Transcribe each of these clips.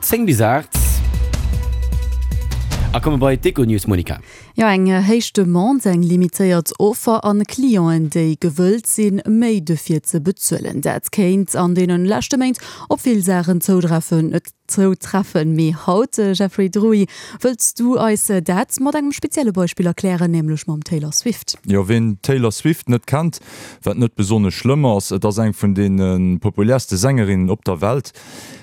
10 bis 8 a komme bei d'Econews, Monica. Jo, eng héich Demande, eng limitéiert Offer an Clienten, déi gewëllt sinn, méi dofir ze bezuelen. Dat kéint an deene leschte Méint op vill Saachen zoutreffen. Zoutreffen. Mee haut, Jeffrey Druy, wëlls du eis dat mat engem spezielle Beispill erklären, nämlech mam Taylor Swift. Jo, ween d'Taylor Swift net kennt, wat net besonnesch schlëmm ass, et ass eng vun deene populärste Sängerinnen op der Welt.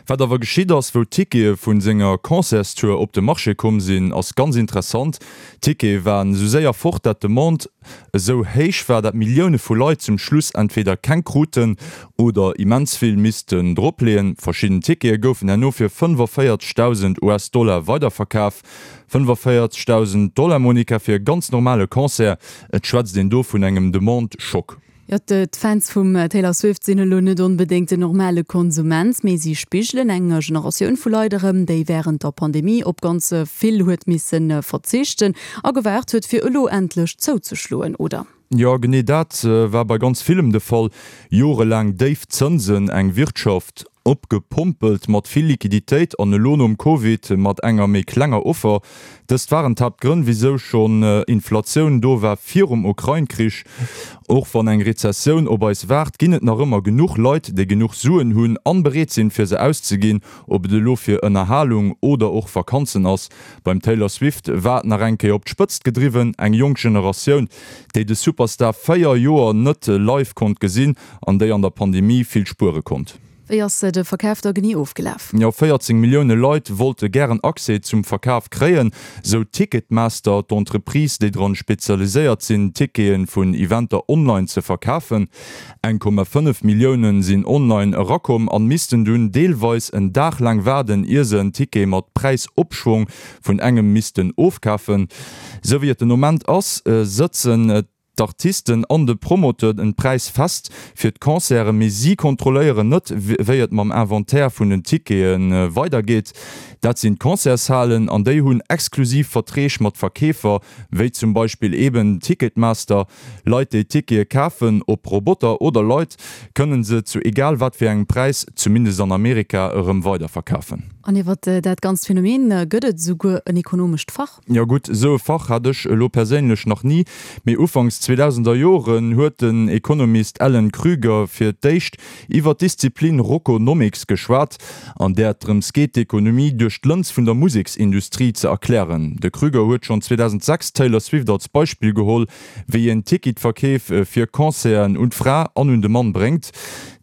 Wat awer geschitt ass, wou d'Tickete vu senger Concertstour op de Marché komm sinn, ass ganz interessant, D'Tickete waren esou séier fort, dat d'Demande esou héich war, dat Millioune vu Leit zum Schluss entweder keng kruten oder immens vill missten dropleeën. Verschidden Tickete goufen herno fir 45.000 US-Dollar weiderverkaf. 45.000 Dollar, Monica, fir e ganz normale Concert. Et schwätzt een do vun engem Demande-Schock. Jo, d'Fans vum Taylor Swift sinn elo net onbedéngt den normale Konsument, mee si spigelen eng Generatioun vu Leit erëm, déi wärend der Pandemie op ganz vill huet misse verzichten a gewaart huet, fir elo endlech zouzeschloen, oder? Jo, genee dat war bei ganz villem de Fall. Jorelaang déif Zënsen, eng Wirtschaft opgepompelt mat vill Liquiditéit an elo nom Covid mat enger méi klenger Offer. Dëst waren d'Haaptgrënn, wisou schonn Inflatioun do war virum Ukrain-Krich. Och wann eng Rezessioun op eis waart, ginn et nach ëmmer genuch Leit, déi genuch Suen hunn an bereet sinn, fir se auszeginn, ob et elo fir Ënnerhalung oder och Vakanzen ass. Beim Taylor Swift war et nach eng Kéier op d'Spëtzt gedriwwen, eng jonk Generatioun, déi de Superstar 4 Joer net live konnt gesinn an déi an der Pandemie vill spuere konnt. Wéi ass de Verkaf da genee ofgelaf? Jo, 14 Millioune Leit wollte gären Accès zum Verkaf kréien, sou Ticketmaster, d'Entreprise, déi dran spezialiséiert sinn, Tickete vun Eventer online ze verkafen. 1,5 Millioune sinn online erakomm an missten dunn deelweis en Dag laang waarden, ier se en Ticket mat Präisopschwong vun engem missten ofkafen. Sou wéi et den Moment ass, sëtzen d'Artisten an de Promoteur den Präis fest fir d'Concerten, mee si kontrolléieren net, wéi et mam Inventaire vun den Tickete weidergeet. Dat sinn d'Concertshalen an déi hunn exklusiv Verträg mat Verkeefer, wéi zum Beispill eben Ticketmaster. Leit, déi Tickete kafen, ob Roboter oder Leit, kënnen se zu egal wat fir engem Präis, zumindest an Amerika, erëm weiderverkafen. An iwwer dat ganzt Phänomen gëtt et esouguer en ekonomescht Fach. Jo gutt, esou e Fach hat ech elo perséinlech nach ni, mee ufanks 2000er Joren huet den Economist Alan Krueger fir d'éischt iwwer d'Disziplin Rockonomics geschwat, an där et drëms geet, d'Ekonomie duerch d'Lëns vun der Museksindustrie ze erklären. De Krueger huet schonn 2006 d'Taylor Swift als Beispill geholl, wéi een Ticketverkeef fir Concerten un d'Fra an un de Mann bréngt.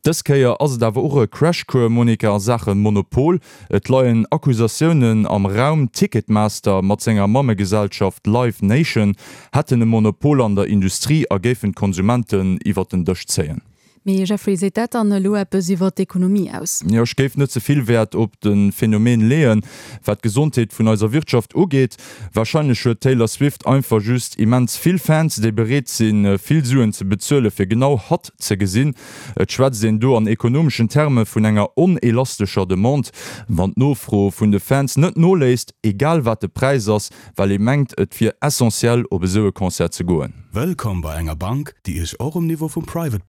Dës Kéier ass et awer och e Crashcours, Monica, a Saache Monopol. Et leien Accusatiounen am Raum, Ticketmaster mat senger Mammegesellschaft Live Nation hätten e Monopol an der Industrie a géifen d'Konsumenten iwwer den Dësch zéien. Mee Jeffrey, seet dat dann elo eppes iwwer d'Ekonomie aus? Jo, ech géif net ze vill Wäert op de Phänomen leeën, wat d'Gesondheet vun eiser Wirtschaft ugeet. Warscheinlech huet d'Taylor Swift einfach just immens vill Fans, déi bereet sinn, vill Suen ze bezuele fir genau hatt ze gesinn. Et schwätzt een do an ekonomeschen Terme vun enger onelastescher Demande, wann d'Nofro vun de Fans net noléisst, egal wat de Präis ass, well ee mengt et wier essentiell op esou e Concert ze goen. Wëllkomm bei enger Bank, déi Iech och um Niveau vum Private.